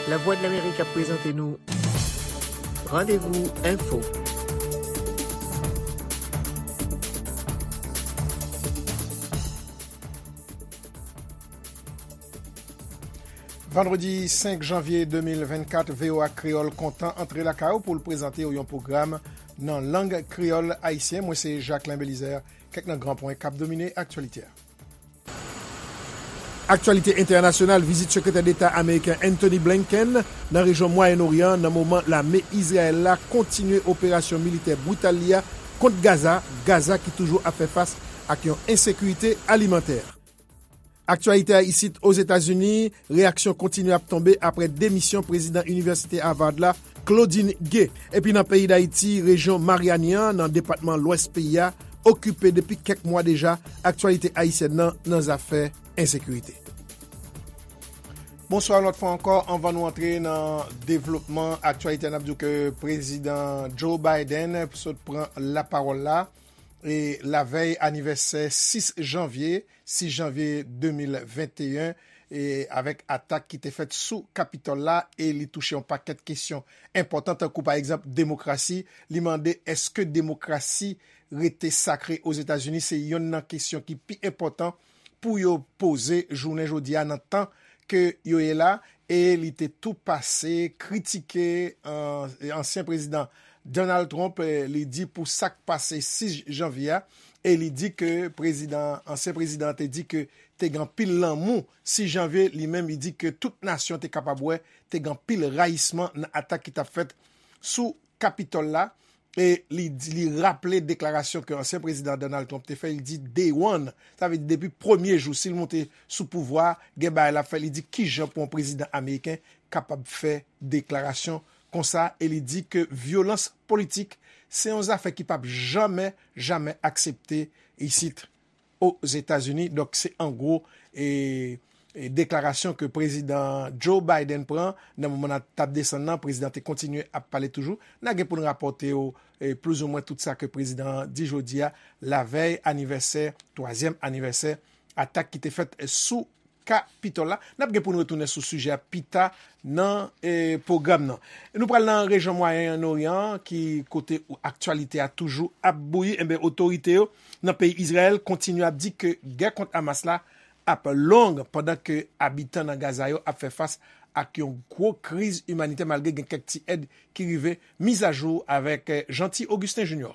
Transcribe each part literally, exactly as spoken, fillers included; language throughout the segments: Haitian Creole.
Lavwadlamerik ap prezante nou Randevou Enfo. Vandredi senk janvye de mil vennkat, V O A Kreyòl kontan antre lakay ou pou l prezante w yon pwogram nan lang kreyòl ayisyen. Mwen se Jacquelin Belizaire. Kèk nan gran pwen k ap domine aktyalite a. Aktyalite entènasyonal, vizit Sekretè Deta ameriken Antony Blinken nan rejyon Mwayen Oryan nan moman lame Izrayèl la kontinye operasyon militè brital li a kont Gaza, Gaza ki toujou ap fè fas ak yon ensekirite alimantè. Aktyalite a isit Ozetazini, reyaksyon kontinye ap tonbe apre demisyon prezidan Inivèsite Harvard la, Claudine Gay. Epi nan peyi Dayiti, rejyon Maryani an, nan depatman Lwès peyi a, okipe depi kèk mwa deja aktyalite ayisyèn nan, nan zafè ensekirite. Bonswa yon lòt fwa ankò. Anvan nou antre nan devlopman aktyalite a, n ap di w ke prezidan Joe Biden sot pran lapawòl la, e lavèy anivèsè sis janvye, sis janvye de mil venteyen, e avèk atak ki te fèt sou Kapitòl la, e li touche yon pakèt kesyon enpòtan, tankou pa egzanp demokrasi. Li mande èske demokrasi rete sakre Ozetazini? Se yonn nan kesyon ki pi enpòtan pou yo poze jounen jodi a nan tan ke yo ye la, e li te tou pase kritike, euh, ansyen prezidan Donald Trump, eh, li di pou sa k pase sis janvye a, e li di ke prezidan, ansyen prezidan an te di ke te gen anpil lanmou sis janvye, li menm li di ke tout nasyon te kapab wè te gen anpil rayisman nan atak ki t ap fèt sou Kapitòl la. E li di, li raple deklarasyon ke ansyen prezidan Donald Trump te fè, li di day one, sa vle di depi premye jou, si l monte sou pouvwa a, gen bagay l ap fè, li di kijan pou yon prezidan ameriken kapab fè deklarasyon konsa, e li di ke vyolans politik se yon zafè ki p ap janmen, janmen aksepte isit Ozetazini. Donk, se an gwo, e, e deklarasyon ke prezidan Joe Biden pran nan moman n ap, t ap desann nan. Prezidan te kontinye ap pale toujou. N a gen pou n rapòte w, e, plizoumwen tout sa ke prezidan an di jodi a, lavèy anivèsè, twazyèm anivèsè atak ki te fèt sou Kapitòl la. N ap gen pou n retounen sou sijè a pita nan, e, pwogram nan. Nou pral nan rejyon Mwayen Oryan, ki kote aktyalite a toujou ap bouyi. Enben, otorite yo nan peyi Izrayèl kontinye ap di ke gè kont Hamas la ap long, pandan ke abitan nan Gaza yo ap fè fas ak yon gwo kriz imanitè, malgre gen kèk ti èd ki rive. Mizajou avèk, eh, Jeanty Augustin Junior.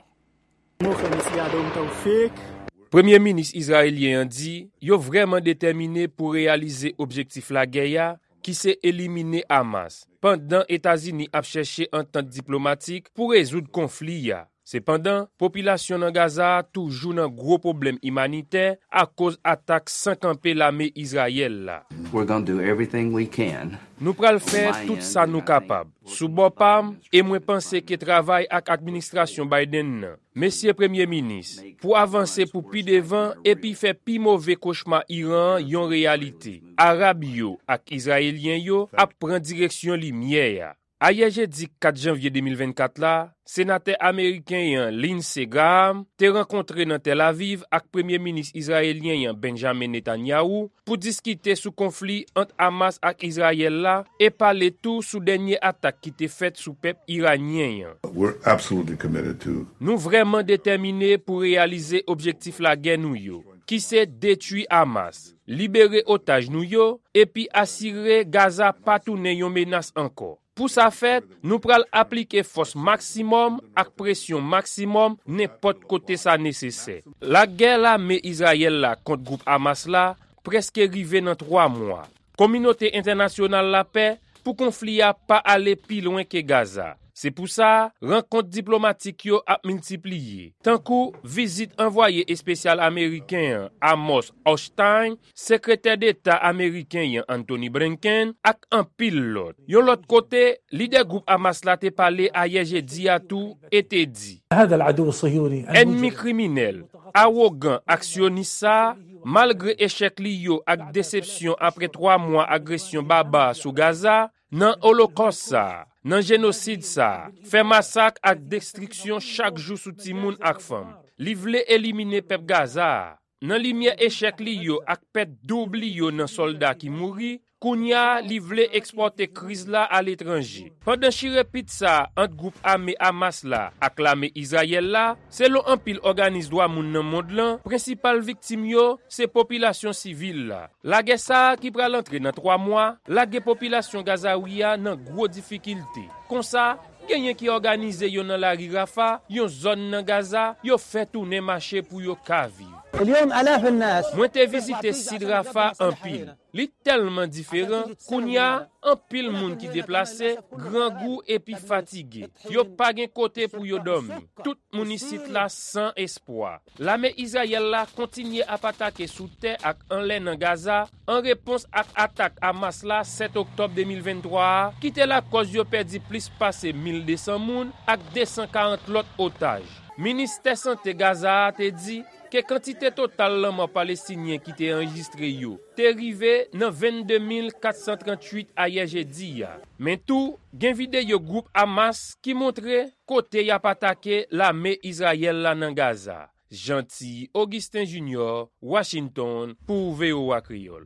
Nou fè mesye a Dom Taufik. Premye minis izrayelyen an di yo vrèman detèmine pou reyalize objektif lagè a, ki se elimine Hamas, pandan Etazini ap chèche antant diplomatik pou rezoud konfli a. Sepandan, popilasyon nan Gaza a toujou nan gwo pwoblèm imanitè akoz atak san kanpe lame Izrayèl la. We're gonna do everything we can. Nou pral fè tout sa nou kapab. Sou bò pa m, e mwen panse ke travay ak administrasyon Biden nan, mesye Premye Minis, pou avanse pou pi devan epi fè pi move kochma Iran an yon reyalite. Arab yo ak Izrayelyen yo ap pran direksyon limyè a. Ayè jedi kat janvye de mil vennkat la, senatè ameriken an Lindsey Graham te rankontre nan Tel Aviv ak Premye Minis izrayelyen an Benjamin Netanyahu pou diskite sou konfli ant Hamas ak Izrayèl la e pale tou sou dènye atak ki te fèt sou pèp iranyen an. We're absolutely committed to Nou vrèman detèmine pou reyalize objektif lagè nou yo, ki se detwi Hamas, libere otaj nou yo, epi asire Gaza pa tounen yon menas ankò. Pou sa fèt, nou pral aplike fòs maksimòm ak presyon maksimòm nenpòt kote sa nesesè. Lagè lame Izrayèl la kont gwoup Hamas la prèske rive nan twa mwa. Kominote entènasyonal la pè pou konfli a pa ale pi lwen ke Gaza. Se pou sa, rankont diplomatik yo ap miltipliye, tankou vizit anvwaye espesyal ameriken an, Amos Hochstein, Sekretè Deta ameriken an Antony Blinken ak anpil lòt. Yon lòt kote, lidè gwoup Hamas la te pale ayè jedi a tou e te di, Ènmi kriminèl, awogan ak syonis sa a, malgre echèk li yo ak desepsyon apre twa mwa agresyon baba sou Gaza, nan olokòs sa a, nan jenosid sa a, fè masak ak destriksyon chak jou sou timoun ak fanm. Li vle elimine pèp Gaza a. Nan limyè echèk li yo ak pèt doub li yo nan sòlda ki mouri, Kounye a, li vle ekspòte kriz la aletranje. Pandan chire pit sa a ant gwoup ame Hamas la ak lame Izrayèl la, selon anpil òganis dwa moun nan mond lan, prensipal viktim yo se popilasyon sivil la. Lagè sa a ki pral antre nan twa mwa, lage popilasyon Gazawi a nan gwo difikilte. Konsa, genyen ki òganize yo nan lari Rafa, yon zòn nan Gaza, yo fè tounen mache pou yo ka viv. اليوم آلاف الناس Mwen te vizite sid Rafa anpil. Li tèlman diferan, kounye a, anpil moun ki deplase, grangou epi fatige. Yo pa gen kote pou yo dòmi. Tout moun isit la san espwa. Lame Izrayèl la kontinye ap atake sou tè ak anlè nan Gaza, an repons ak atak Hamas la sèt oktòb de mil venntwa a, ki te lakòz yo pèdi plis pase mil de san moun ak de san karant lòt otaj. Ministè Sante Gaza a te di ke kantite total lanmò Palestinyen ki te anrejistre yo te rive nan vennde mil kat san tranntuit ayè jedi a. Men tou, gen videyo gwoup Hamas ki montre kote y ap atake lame Izrayèl la nan Gaza. Jeanty Augustin Junior, Washington, pou V O A Kreyòl.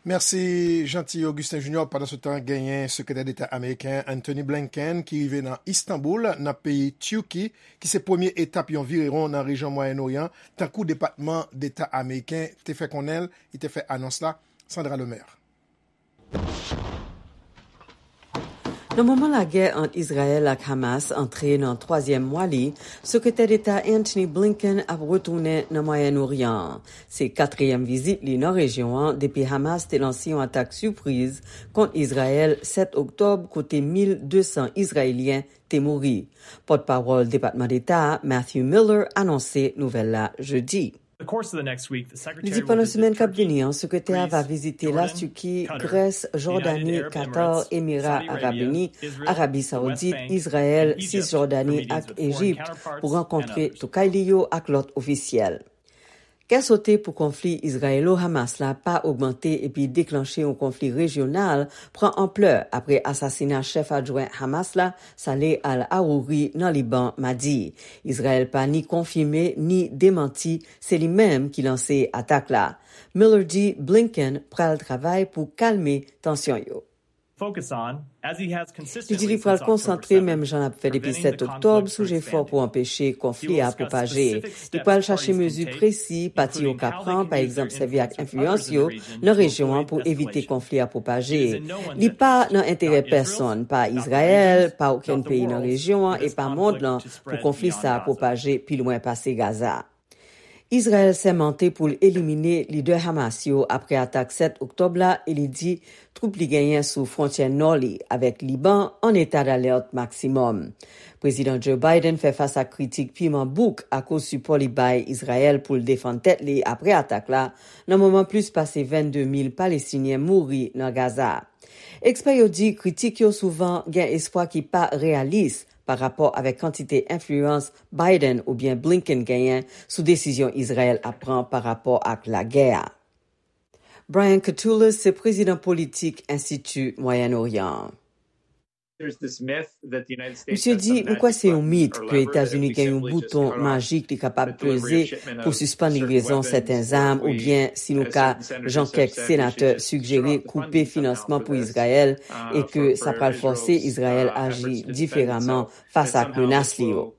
Mèsi, Jeanty Augustin Junior. Pandansetan, genyen Sekretè Deta ameriken Antony Blinken ki rive nan Istanbul, nan peyi Tiki, ki se premye etap yon virewon nan rejyon Mwayen Oryan, tankou Depatman Deta ameriken te fè konnen l, li te fè anons la. Sandra Lemaire. Nan moman lagè ant Izrayèl ak Hamas antre nan twazyèm mwa li, Sekretè Deta Antony Blinken ap retounen nan Mwayen Oryan an. Se katriyèm vizit li nan rejyon an depi Hamas te lanse yon atak sipriz kont Izrayèl sèt oktòb, kote mil de san Izrayelyen te mouri. Pòtpawòl Depatman Deta a, Matthew Miller, anonse nouvèl la jedi. Li di pandan semèn k ap vini an, sekretè a va vizite Latiki, Grès, Jòdani, Katar, Emira Arab Ini, Arabi Sawoudit, Izrayèl, Sisjòdani ak Ejipt pou rankontre toukay li yo ak lòt ofisyèl. Kè sote pou konfli Izrayelo-Hamas la pa ogmante epi deklanche yon konfli rejyonal pran anplè apre asasina chèf adjwen Hamas la, Saleh al-Arouri, nan Liban madi. Izrayèl pa ni konfime ni demanti se li menm ki lanse atak la. Miller di Blinken pral travay pou kalme tansyon yo. Li di li pral konsantre, menm jan l ap fè depi sèt oktòb, sou jefò pou anpeche konfli a pwopaje. Li pral chache mezi presi pati yo ka pran, pa egzanp, sèvi ak enfliyans yo nan rejyon an pou evite konfli a pwopaje. Li pa nan enterè pèsonn, pa Izrayèl, pa okenn peyi nan rejyon an e pa mond lan pou konfli sa a pwopaje pi lwen pase Gaza. Izrayèl sèmante pou l elimine lidè Hamas yo apre atak sèt oktòb la e li di twoup li genyen sou fwontyè nò li avèk Liban an eta dalèt maksimòm. Prezidan Joe Biden fè fas ak kritik piman bouk akoz sipò li bay Izrayèl pou l defann tèt li apre atak la, nan moman plis pase vennde mil Palestinyen mouri nan Gaza. Ekspè yo di kritik yo souvan gen espwa ki pa reyalis pa rapò avèk kantite enfliyans Biden oubyen Blinken genyen sou desizyon Izrayèl ap pran pa rapò ak lagè a. Brian Katulis se prezidan politik Enstiti Mwayen Oryan an. Misye di, "M kwè se yon mit ke Etazini gen yon bouton majik li kapab peze pou sispann livrezon sèten zam, oubyen, si nou ka, jan kèk senatè sigjere, koupe finansman pou Izrayèl, e ke sa pral fòse Izrayèl aji diferaman fas ak menas li yo."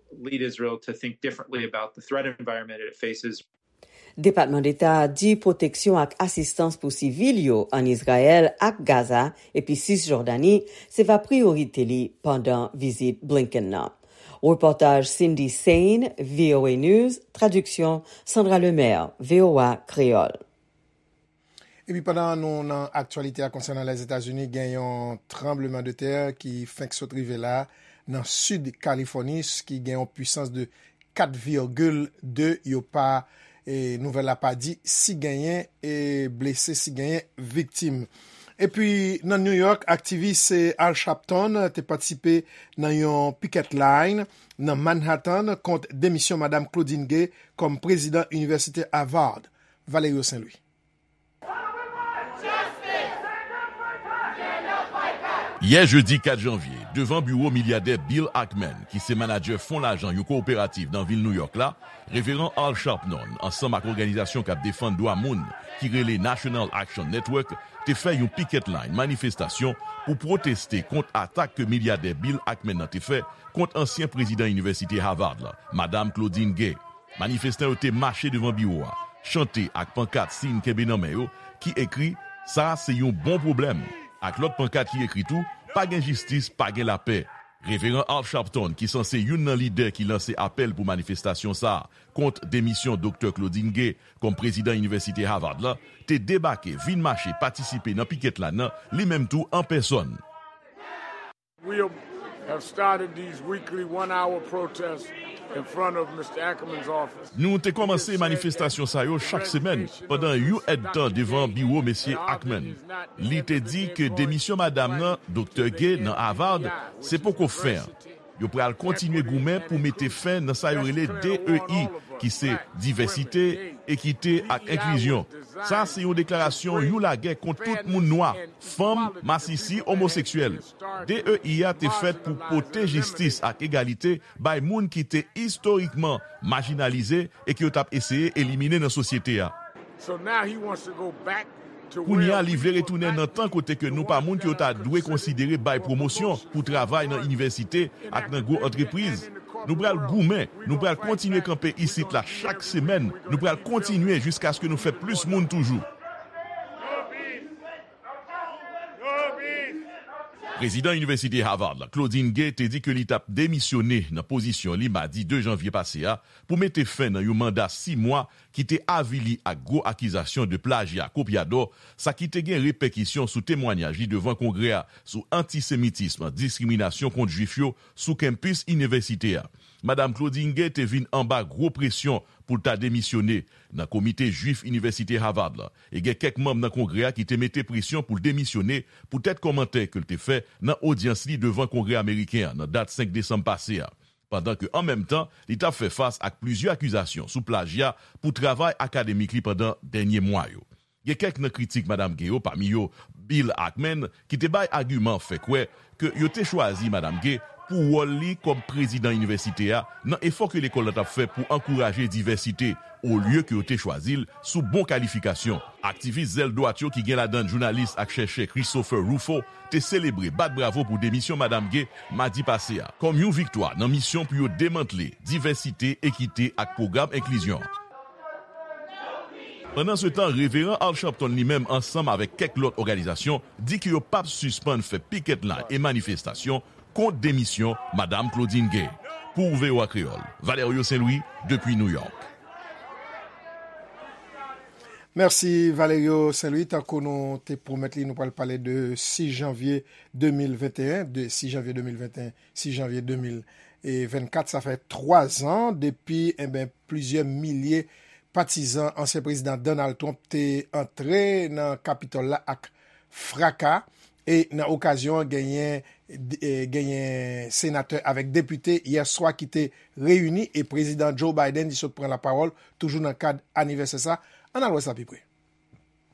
Depatman Deta a di pwoteksyon ak asistans pou sivil yo ann Izrayèl ak Gaza epi Sisjòdani se va priyorite li pandan vizit Blinken nan. Repòtaj Cindy Saine, V O A News, tradiksyon Sandra Lemaire, V O A Kreyòl. Epi pandan nou nan aktyalite a konsènan Lèzetazini, gen yon tranblemanntè ki fenk sot rive la nan sid Kalifòni, ki gen yon pwisans de kat vigil de, yo pa, e, nouvèl la pa di si genyen, e, blese, si genyen viktim. Epi nan New York, aktivis, e, Al Sharpton te patisipe nan yon picket line nan Manhattan kont demisyon Madam Claudine Gay kòm prezidan Inivèsite Harvard. Valerio Saint-Louis. Yè jedi kat janvye, Devan biwo milyadè Bill Ackman, ki se manadjè fon lajan yon kowoperativ nan vil Nouyòk la, Reveran Al Sharpton, ansanm ak òganizasyon k ap defann dwa moun ki rele National Action Network, te fè yon picket line, manifestasyon, pou pwoteste kont atak ke milyadè Bill Ackman nan te fè kont ansyen prezidan inivèsite Harvard la, Madam Claudine Gay. Manifestan yo te mache devan biwo a, chante ak pankat siy kenbe nan men yo ki ekri "Sa a se yon bon pwoblèm", ak lòt pankat ki ekri tou "Pa gen jistis, pa gen lapè". Reveran Al Sharpton, ki sanse youn nan lidè ki lanse apèl pou manifestasyon sa a kont demisyon Doktè Claudine Gay kòm prezidan inivèsite Harvard la, te debake, vin mache, patisipe nan piket line nan, li menm tou an pèsòn. We have started these weekly one hour protests in front of Mister Ackerman's office. Nou te kòmanse manifestasyon sa yo chak semèn pandan yon èdtan devan biwo Mesye Ackman. Li te di ke demisyon madanm nan, Doktè Gay, nan Harvard, se poko fen an. Yo pral kontinye goumen pou mete fen nan sa yo rele D E I, ki se divèsite, ekite ak enklizyon. Sa se yon deklarasyon, yon lagè kont tout moun nwa, fanm, masisi, omoseksyèl. D E I a te fèt pou pote jistis ak egalite bay moun ki te istorikman majinalize e ke yo t ap eseye elimine nan sosyete a. Kounye a, li vle retounen nan tan kote ke nou pa moun ke yo ta dwe konsidere bay pwomosyon pou travay nan inivèsite ak nan gwo antrepriz. Nou pral goumen, nou pral kontinye kanpe isit la chak semèn, nou pral kontinye jiskaske nou fè plis moun toujou. Prezidan Inivèsite Harvard la, Claudine Gay, te di ke li t ap demisyone nan pozisyon li madi de janvye pase a pou mete fen nan yon manda sis mwa ki te avili ak gwo akizasyon de plajya kopyadò, sa ki te gen repèkisyon sou temwanyaj li devan Kongrè a sou antisemitism, diskriminasyon kont Jwif yo sou kenpis inivèsite a. Madam Claudine Gay te vin anba gwo presyon pou l ta demisyone nan Komite Jwif Inivèsite Harvard la, e gen kèk manm nan Kongrè a ki te mete presyon pou l demisyone poutèt kòmantè ke l te fè nan odyans li devan Kongrè ameriken an nan dat senk desanm pase a, pandan ke an menm tan li t ap fè fas ak plizyè akizasyon sou plajya pou travay akademik li pandan dènye mwa yo. Gen kèk nan kritik Madam Gay yo, pami yo Bill Ackman, ki te bay agiman fè kwè ke yo te chwazi Madam Gay pou wòl li kòm prezidan inivèsite a nan efò ke lekòl la t ap fè pou ankouraje divèsite, olye ke yo te chwazi l sou bon kalifikasyon. Aktivis zèl dwat yo, ki gen ladan jounalis ak chèchè Christopher Rufo, te selebre, bat bravo pou demisyon Madam Gay madi pase a, kòm yon viktwa nan misyon pou yo demantle divèsite, ekite ak pwogram enklizyon. Pandansetan, Reveran Al Sharpton li menm, ansanm avèk kèk lòt òganizasyon, di ke yo p ap sispann fè piket line e manifestasyon kont demisyon Madam Claudine Gay. Pou V O A Kreyòl, Valerio Saint Louis, depi New York. Mèsi Valerio Saint Louis. Tankou nou te pwomèt li, nou pral pale de sis janvye de mil venteyen, de sis janvye de mil venteyen, sis janvye de mil vennkat. Sa fè twa zan depi, enben, plizyè milye patizan ansyen prezidan Donald Trump te antre nan Kapitòl la ak fraka. E nan okazyon an, genyen, e, genyen senatè avèk depite yè swa ki te reyini, e Prezidan Joe Biden li sot pran lapawòl, toujou nan kad anivèsè sa. Ann al wè sa pi pre.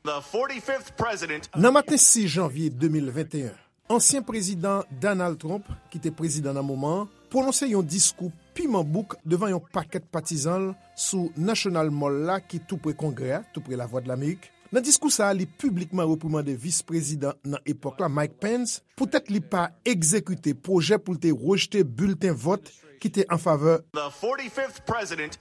Nan maten sis janvye de mil venteyen, ansyen prezidan Donald Trump, ki te prezidan nan moman an, pwononse yon diskou piman bouk devan yon pakèt patizan l sou National Mall la, ki tou pre Kongrè a, tou pre Lavwadlamerik. Nan diskou sa a, li piblikman reprimande vis prezidan nan epòk la, Mike Pence, poutèt li pa egzekite pwojè pou l te rejte bilten vòt ki te an favè.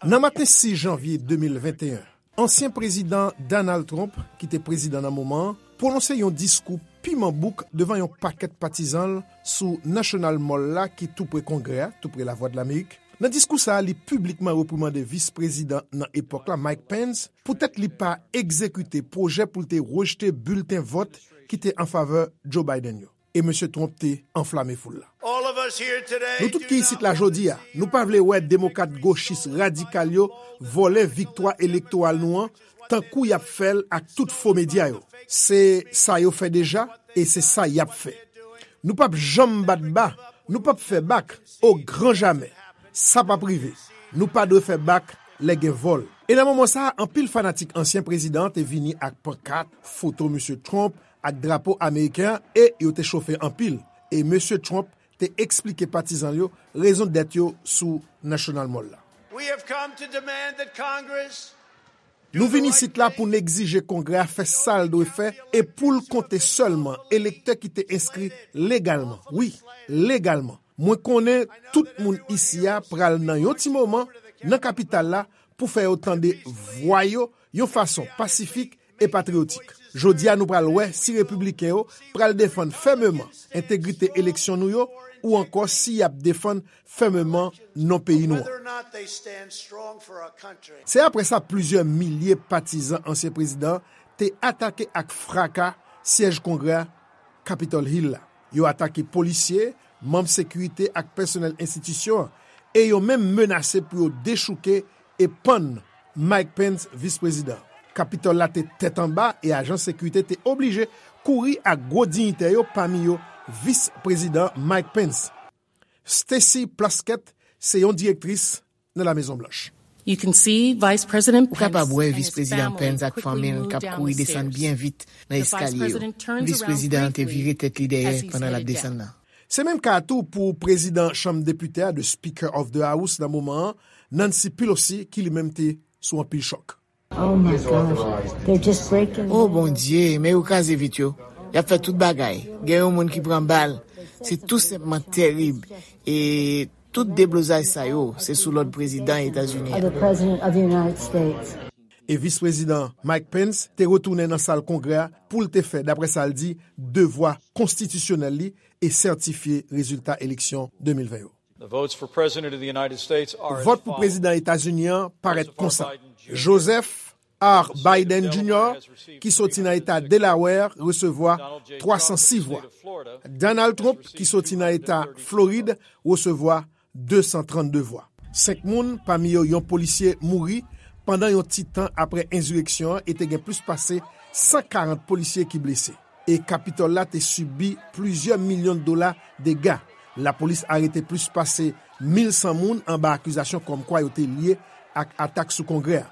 Nan maten sis janvye de mil venteyen, ansyen prezidan Donald Trump, ki te prezidan nan moman an, pwononse yon diskou piman bouk devan yon pakèt patizan l sou National Mall la, ki tou pre Kongrè a, tou pre Lavwadlamerik. Nan diskou sa a, li piblikman reprimande vis prezidan nan epòk la, Mike Pence, poutèt li pa egzekite pwojè pou l te rejte bilten vòt ki te an favè Joe Biden yo. E mesye Trump te anflame foul la. Nou tout ki isit la jodi a, nou pa vle wè demokrat gochis radikal yo vòlè viktwa elektoral nou an, tankou y ap fè l ak tout fo medya yo. Se sa yo fè deja, e se sa y ap fè. Nou p ap janm bat ba, nou p ap fè bak, o gran jamè. Sa p ap rive. Nou pa dwe fè bak lè gen vòl. E nan moman sa a, anpil fanatik ansyen prezidan an te vini ak pankat, foto mesye Trump ak drapo ameriken an, e yo te chofe anpil. E mesye Trump te eksplike patizan l yo rezon dèt yo sou National Mall la. We have come to demand that Congress Nou vin isit la pou n egzije Kongrè a fè sa l dwe fè e pou l konte sèlman elektè ki te enskri legalman. Wi, legalman. Mwen konnen tout moun isi a pral nan yon ti moman nan kapital la pou fè yo tande vwa yo yon fason pasifik e patriyotik. Jodi a nou pral wè si repibliken yo pral defann fèmeman entegrite eleksyon nou yo ou ankò si y ap defann fèmeman non peyi nou an. Se apre sa plizyè milye patizan ansyen prezidan an te atake ak fraka syèj Kongrè a, Capitol Hill la. Yo atake polisye, manm sekirite ak pèsonèl enstitisyon an, e yo menm menase pou yo dechouke e pann Mike Pence, vis prezidan. Kapitòl la te tèt anba e ajan sekirite te oblije kouri ak gwo diyitè yo, pami yo vis prezidan Mike Pence. Stacy Plaskett se yon direktris nan La Mezon Blanch. Ou kapab wè Vis Prezidan Pence ak fanmi l k ap kouri desann byen vit nan eskalye yo. Vis Prezidan an te vire tèt li dèyè pandan l ap desann nan. Se menm ka a tou pou Prezidan Chanm Depite a, the Speaker of the House nan moman an, Nancy Pelosi, ki li menm te sou anpil chòk. Oh Bondye, men yo kraze vit yo. Y ap fè tout bagay. Gen yon moun ki pran bal. Se tou senpman terib. E tout deblozay sa yo, se sou lòd prezidan Etazini an. E Vis Prezidan Mike Pence te retounen nan sal Kongrè a pou l te fè, daprè sa l di, devwa konstitisyonèl li e sètifye rezilta eleksyon de mil ven yo. Vòt pou Prezidan Etazini an parèt konsa. Joseph R. Biden Junior, ki soti nan eta Delaware, resevwa twa san sis vwa. Donald Trump, ki soti nan eta Florid, resevwa de san trannde vwa. Senk moun, pami yo yon polisye, mouri pandan yon ti tan apre ensireksyon an e te gen plis pase san karant polisye ki blese. E Kapitòl la te sibi plizyè milyon dola dega. Lapolis arete plis pase mil san moun anba akizasyon kòmkwa yo te lye ak atak sou Kongrè a.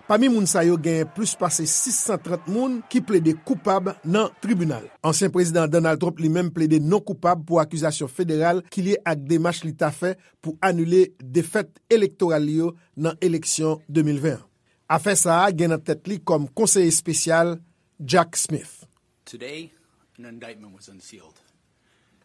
Pami moun sa yo, genyen plis pase sis san trant moun ki plede koupab nan tribinal. Ansyen Prezidan Donald Trump li menm plede non koupab pou akizasyon federal ki lye ak demach li ta fè pou anile defèt elektoral li yo nan eleksyon de mil ven an. Afè sa a gen nan tèt li kòm konseye espesyal Jack Smith.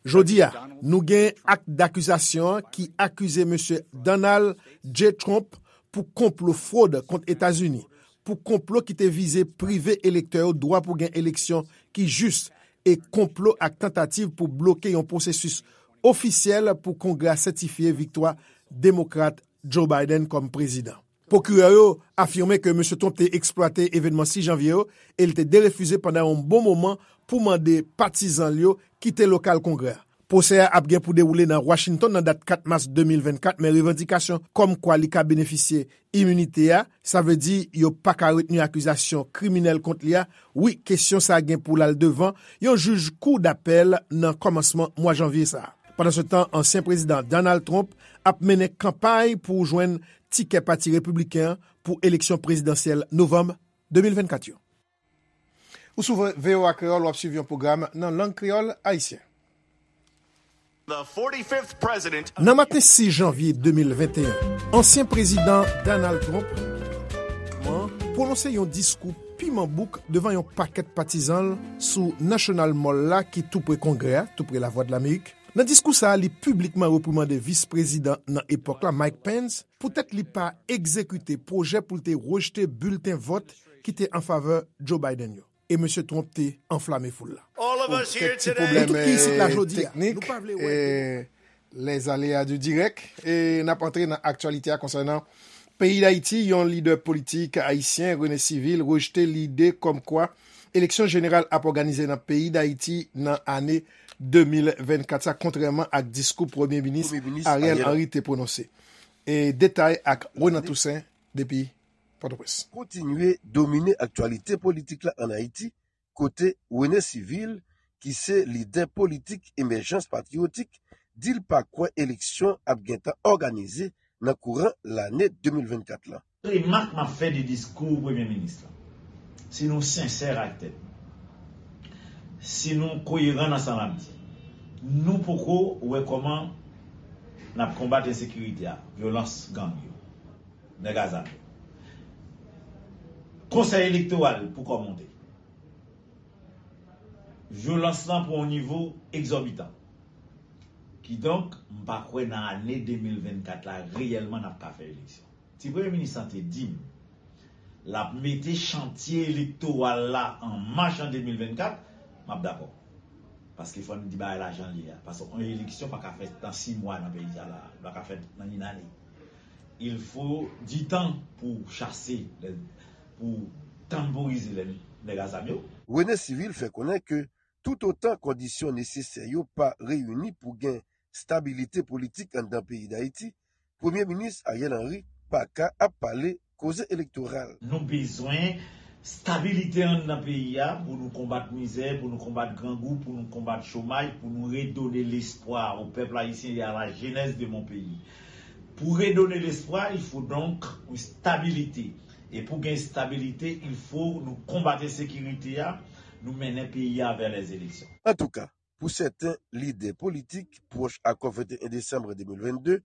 Jodi a, nou gen ak dakizasyon an ki akize Mesye Donald J. Trump pou konplo fwod kont Etazini, pou konplo ki te vize prive elektè yo dwa pou gen eleksyon ki jis, e konplo ak tantativ pou bloke yon pwosesis ofisyèl pou Kongrè a sètifye viktwa Demokrat Joe Biden kòm prezidan. Pwokirè yo afime ke Mesye Trump te eksplwate evènman sis janvye yo e l te derefize pandan yon bon moman pou mande patizan l yo kite lokal Kongrè a. Pwosè a ap gen pou dewoule nan Washington nan dat kat mas de mil vennkat, men revandikasyon kòmkwa li ka benefisye iminite a, sa vle di yo pa ka retni akizasyon kriminèl kont li a, wi, kesyon sa a gen pou l al devan yon jij kou dapèl nan kòmansman mwa janvye sa a. Pandansetan, ansyen Prezidan Donald Trump ap mennen kanpay pou jwenn tikè Pati Repibliken an pou eleksyon prezidansyèl novanm de mil vennkat yo. Ou sou VOA Kreyòl, w ap swiv yon pwogram nan lang kreyòl ayisyen. Nan maten sis janvye de mil venteyen, ansyen Prezidan Donald Trump pwononse yon diskou piman bouk devan yon pakèt patizan l sou National Mall la ki tou pre Kongrè a, tou pre Lavwadlamerik. Nan diskou sa a, li piblikman reprimande vis prezidan nan epòk la, Mike Pence, poutèt li pa egzekite pwojè pou l te rejte bilten vòt ki te an favè Joe Biden yo. E Mesye Trump te anflame foul la. Pou kèk ti pwoblèm teknik, lèzaléa di dirèk, e n ap antre nan aktyalite a konsènan peyi Dayiti. Yon lidè politik ayisyen, René Civil, rejte lide kòmkwa eleksyon jeneral ap òganize nan peyi Dayiti nan ane de mil vennkat sa, kontrèman ak diskou Premye Minis Ariel Henry te pwononse. E detay ak Renan Toussaint depi Pòtoprens. Kontinye domine aktyalite politik la ann Ayiti, kote René Civil, ki se lidè politik Emèjans Patriyotik, di l pa kwè eleksyon ap gentan òganize nan kouran lane de mil vennkat la. Remak m ap fè de diskou Premye Minis la, si nou sensè ak tèt nou, si nou koyeran nan sa n ap di, Nou poko wè kòman n ap konbat ensekirite a, vyolans gang yo, nèg a zam yo. Konsèy elektoral poko monte. Vyolans lan pran yon nivo egzòbitan. Kidonk, m pa kwè nan ane de mil vennkat la, reyèlman n ap ka fè eleksyon. Si premye minis lan te di m l ap mete chantye elektoral la an mach an de mil vennkat, m ap dakò. Paske fò n di bagay la jan l ye a. Paske yon eleksyon pa ka fèt nan sis mwa nan peyi sa la. Li pa ka fèt nan yon ane. Il faut du temps pou chase, pou tanporize nèg a zam yo. Rene Civil fè konnen ke toutotan kondisyon nesesè yo pa reyini pou gen stabilite politik anndan peyi Dayiti, Premye Minis Ariel Henry pa ka ap pale koze elektoral. Nou bezwen stabilite anndan peyi a pou nou konbat mizè, pou nou konbat grangou, pou nou konbat chomaj, pou nou redone lespwa o pèp ayisyen e a la jenès de mon peyi. Pou redone lespwa, il faut donc une stabilité. E pou gen stabilite, il faut nou konbat ensekirite a, nou mennen peyi a vè lèzeleksyon. Antouka, pou sèten lidè politik pwòch akò venteyen desanm de mil vennde,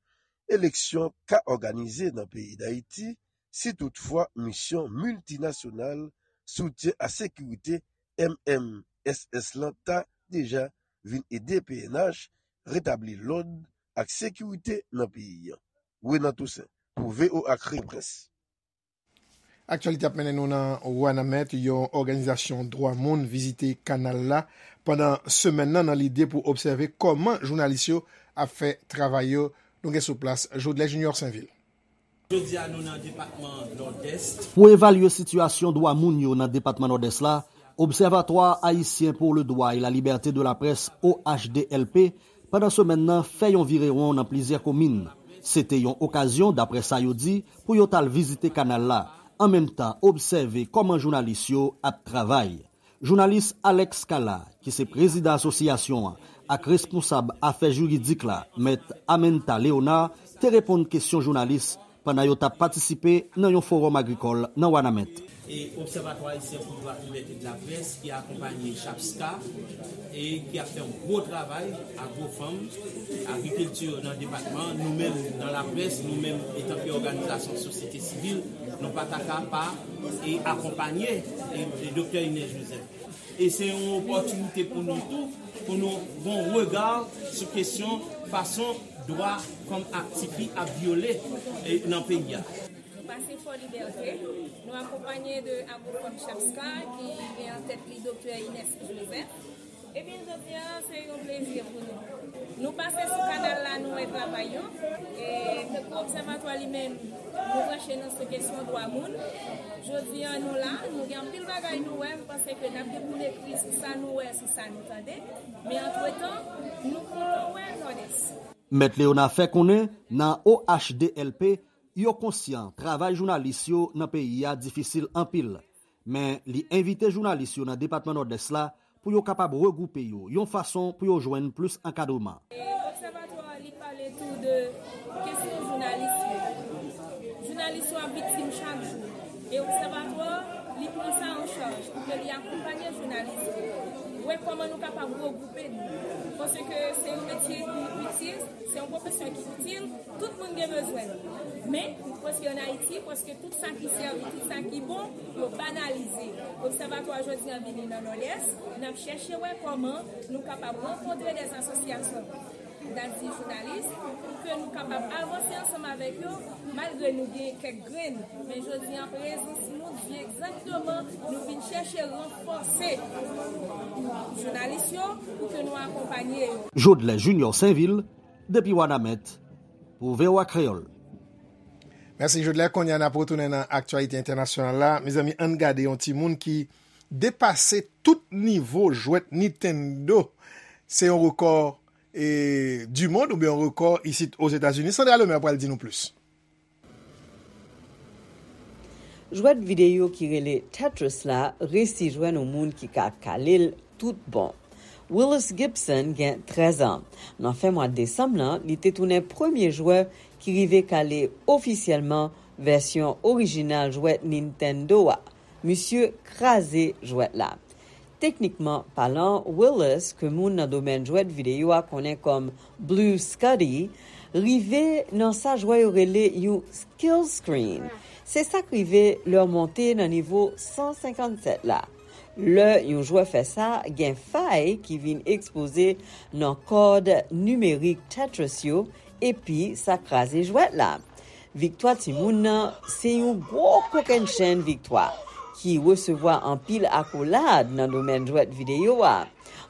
eleksyon ka òganize nan peyi Dayiti si toutfwa misyon miltinasyonal soutyen a sekirite M M S S lan ta deja vin ede P N H retabli lòd ak sekirite nan peyi an. Renan Toussaint, pou V O A Kreyòl Près. Aktyalite ap mennen nou nan Wanament, yon òganizasyon dwa moun vizite kanal la pandan semèn nan, nan lide pou obsève kòman jounalis yo ap fè travay yo. Nou gen sou plas Jodlè Junior Sainvil. Jodi a, nou nan depatman Nòdès. Pou evalye sitiyasyon dwa moun yo nan depatman Nòdès la, Observatoire Haïtien pour le Droit et la Liberté de la Presse, O H D L P, pandan semèn nan, fè yon virewon nan plizyè komin. Se te yon okazyon, daprè sa yo di, pou yo t al vizite kanal la, an menm tan obsève kòman jounalis yo ap travay. Jounalis Alex Kala, ki se prezidan asosyasyon an ak responsab afè jiridik la, mèt Amenta Léonard, te reponn kesyon jounalis pandan yo t ap patisipe nan yon fowòm agrikòl nan Wanament. E Observatoire Haïtien pour le Droit et la Liberté de la Presse, ki akonpanye CHAPSCA, e ki ap fè yon gwo travay, Agrofanm, agrikilti nan depatman, nou menm nan laprès, nou menm etanke òganizasyon sosyete sivil, nou pa ta ka pa e akonpanye e, e Doktè Inès Joseph. E se yon opòtinite pou nou tou, pou nou gon rega sou kesyon fason dwa fanm ak tifi ap vyole e, nan peyi a. Nou pase Fò Libète, nou akonpanye de Agrofanm CHAPSCA ki gen an tèt li Doktè Inès Joseph. Ebyen, jodi a, se yon plezi pou nou. Nou pase sou kanal la, nou wè travay yo. E tankou obsèvatwa li menm, nou branche nan sou kesyon dwa moun. Jodi a, nou la, nou gen anpil bagay nou wè, m panse ke n ap dekoule kri sou sa nou wè, sou sa nou tande. Men antretan, nou kontan wè Nòdès. Mèt Leona fè konnen, nan O H D L P, yo konsyan travay jounalis yo nan peyi a difisil anpil. Men li envite jounalis yo nan depatman Nòdès la pou yo kapab regwoupe yo yon fason pou yo jwenn plis ankadreman. E obsèvatwa a, li pale tou de kesyon jounalis yo. Jounalis yo ap viktim chak jou. E obsèvatwa a, li pran sa an chaj pou ke li akonpanye jounalis yo. Wè kòman nou kapab regwoupe nou. Paske se yon metye ki itil, se yon pwofesyon ki itil, tout moun gen bezwen l. Men, paske ann Ayiti, paske tout sa ki sèvi, tout sa ki bon, yo banalize. Obsèvatwa jodi a vini nan Nòdès, n ap chèche wè kòman nou kapab rankontre dèz asosyasyon, n a di jounalis, pou ke nou kapab avanse ansanm avèk yo, malgre nou gen kèk grenn. Men jodi a, prezans nou di egzakteman, nou vin chèche ranfòse jounalis yo pou ke nou akonpanye yo. Jodlè Junior Sainvil, depi Wanament, pou V O A Kreyòl. Mèsi, Jodlè. Kounye a, n ap retounen nan aktyalite entènasyonal la. Mezanmi, ann gade yon timoun ki depase tout nivo jwèt Nintendo. Se yon rekò, e, du monde oubyen yon rekò isit Ozetazini. Sandra Lemaire pral di nou plis. Jwèt videyo ki rele Tetris la resi jwenn yon moun ki ka kale l tout bon. Willis Gibson gen trèz an. Nan fen mwa desanm nan, li te tounen premye jwè ki rive kale ofisyèlman vèsyon orijinal jwèt Nintendo a. Misye kraze jwèt la. Teknikman palan, Willis, ke moun nan domèn jwèt videyo a konnen kòm Blue Scuddy, rive nan sa jwè yo rele yon kill screen. Se sa k rive lè w monte nan nivo san senkannsèt la. Lè yon jwè fè sa, gen fay ki vin ekspoze nan kòd nimerik Tetris yo, epi sa kraze jwèt la. Viktwa timoun nan se yon gwo kokennchenn viktwa ki resevwa anpil akolad nan domèn jwèt videyo a.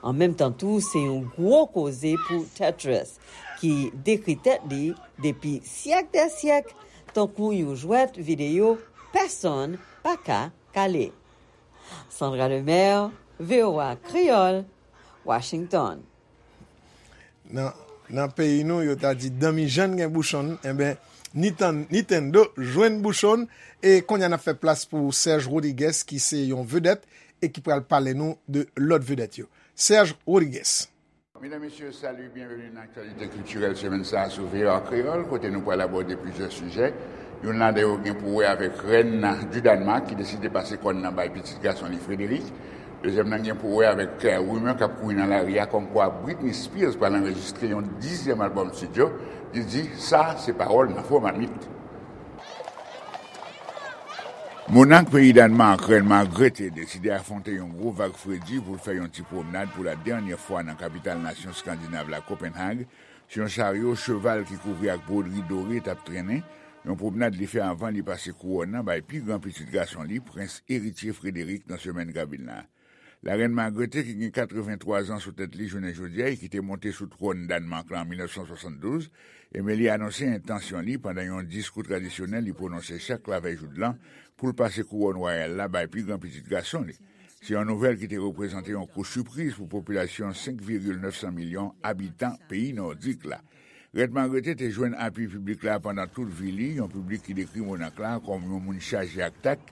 An menm tan tou, se yon gwo koze pou Tetris, ki dekri tèt li depi syèk dè syèk tankou yon jwèt videyo pèsonn pa ka kale. Sandra Lemaire, V O A Kreyòl, Washington. Nan, nan peyi nou, yo ta di danmi jann gen bouchonn, enben, Nitan- Nintendo jwenn bouchonn, e kounye a n ap fè plas pou Serge Rodriguez, ki se yon vedèt e ki pral pale nou de lòt vedèt yo. Serge Rodriguez. Medam, mesye, sali, byenveni nan aktyalite kiltirèl semèn sa a sou V O A Kreyòl, kote nou pral abòde plizyè sijè. Youn ladan yo gen pou wè avèk rèn di Dànmak ki deside pase kòn nan bay pitit gason li Frederick. Dezyèm nan gen pou wè avèk rimè k ap kouri nan lari a kòmkwa Britney Spears pral anrejistre yon dizyèm albòm estidyo. Li di, sa se pawòl nan fo mamit. Monak peyi Dànmak, rèn Margrethe deside afwonte yon gwo vag fredi pou l fè yon ti pwomnad pou la dènyè fwa nan kapital nasyon Skandinav la, Copenhague, sou yon charyo cheval ki kouvri ak bwodri dore t ap trennen, yon pwomnad li fè anvan li pase kouwòn nan bay pi gran pitit gason li, Prens Eritye Frederick, nan semèn k ap vin la. Larèn Margrethe, ki gen katrevenntwa zan sou tèt li jounen jodi a e ki te monte sou twòn Dànmak la an mil nèf san swasanndouz, enben li anonse entansyon li pandan yon diskou tradisyonèl li pwononse chak lavèy joudlan pou l pase kouwòn wayal la bay pi gran pitit gason li. Se yon nouvèl ki te reprezante yon kou sipriz pou popilasyon senk vigil nèf san milyon abitan peyi nòdik la. Rèn Margrethe te jwenn apui piblik la pandan tout vi li, yon piblik ki dekri monak la kòm yon moun chaje ak tak,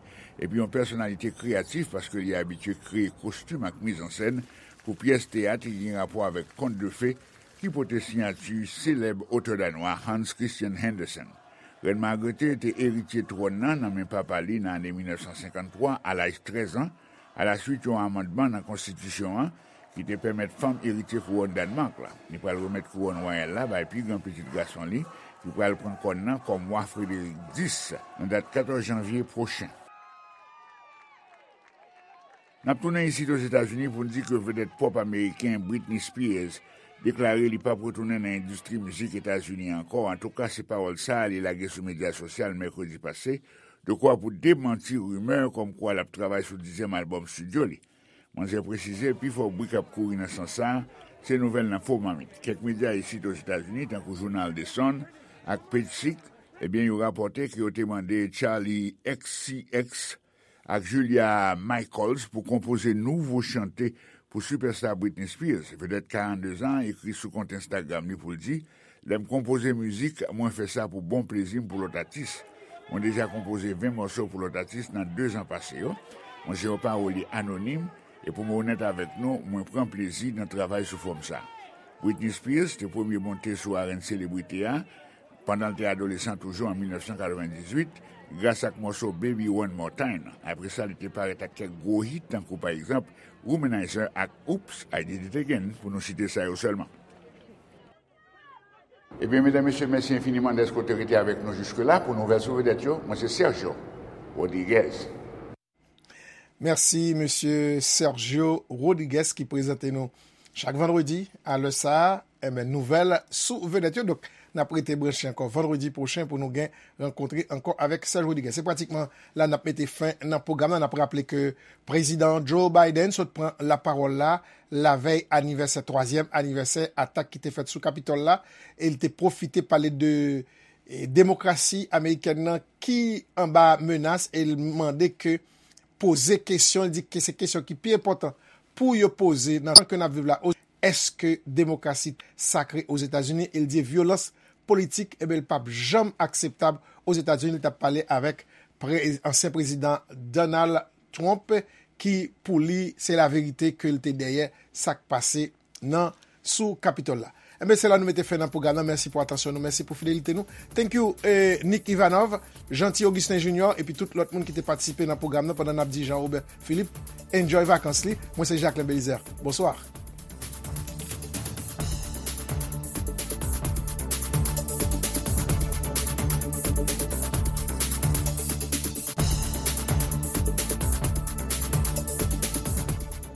epi yon pèsonalite kreyatif paske li abitye kreye kostim ak mizansèn pou pyès teyat ki gen rapò avèk kont de fe ki pote siyati selèb otè danwa Hans Christian Andersen. Rèn Margrethe te eritye twòn nan nan men papa li nan ane mil nèf san senkanntwa, a laj trèz an, alaswit yon amandman nan konstitisyon an ki te pèmèt fanm eritye kouwòn Dànmak la. Li pral remèt kouwòn wayal la bay pi gran pitit gason li, ki pral pran kòn nan kòm wa Frederick dis, nan dat katòz janvye pwochen. N ap tounen isit Ozetazini pou n di ke vedèt pòp ameriken Britney Spears deklare li p ap retounen nan endistri mizik Etazini ankò. Antouka, se pawòl sa a li lage sou medya sosyal mèkredi pase, dekwa pou demanti rimè kòmkwa l ap travay sou dizyèm albòm estidyo li. Manzè presize, pifò bri k ap kouri nan sans sa a, se nouvèl nan fo mamit. Kèk medya isit Ozetazini, tankou jounal The Sun ak Page Six, ebyen, yo rapòte ke yo te mande Charli X C X ak Julia Michaels pou konpoze nouvo chante pou sipèsta Britney Spears. Vedèt karannde zan an ekri sou kont Instagram li pou l di, lè m konpoze mizik, mwen fè sa pou bon plezi m pou lòt atis. Mwen deja konpoze ven mòso pou lòt atis nan de zan pase yo. Mwen se yon pawolye anonim, e pou mwen onèt avèk nou, mwen pran plezi nan travay sou fòm sa. Britney Spears te premye monte sou arèn selebrite a pandan l te adolesan toujou an mil nèf san katrevendizuit, gras ak mòso Baby One More Time. Apre sa, li te parèt ak kèk gwo hit, tankou pa egzanp Womanizer ak Oops, I Did It Again, pou nou site sa yo sèlman. Ebyen, medam, mesye, mèsi enfiniman dèske w te rete avèk nou jiske la pou nouvèl sou vedèt yo. Mwen se Sergio Rodriguez. Mèsi, mesye Sergio Rodriguez, ki prezante nou chak vandredi, a lè sa a, enben, nouvèl sou vedèt yo. Donk, n ap rete branche ankò vandredi pwochen pou nou gen rankontre ankò avèk Serge Rodriguez. Se pratikman la n ap mete fen nan pwogram nan. N ap raple ke Prezidan Joe Biden sot pran lapawòl la lavèy anivèsè, twazyèm anivèsè atak ki te fèt sou Kapitòl la, e l te pwofite pale de, e, demokrasi amerikèn nan ki anba menas, e l mande ke poze kesyon, li di ke se kesyon ki pi enpòtan pou yo poze nan tan ke n ap viv la. Èske demokrasi sakre Ozetazini? E l di vyolans politik, enben, li p ap janm akseptab Ozetazini. Li t ap pale avèk pre-, ansyen prezidan Donald Trump, ki, pou li, se laverite ke l te dèyè sa k pase nan, sou Kapitòl la. Enben, se la nou mete fen nan pwogram nan. Mèsi pou atansyon nou. Mèsi pou fidelite nou. Thank you, eh, Nick Ivanov, Jeanty Augustin Junior, epi tout lòt moun ki te patisipe nan pwogram nan pandan n ap di Jean Robert Philippe. Enjoy vakans li. Mwen se Jacquelin Belizaire. Bonswa.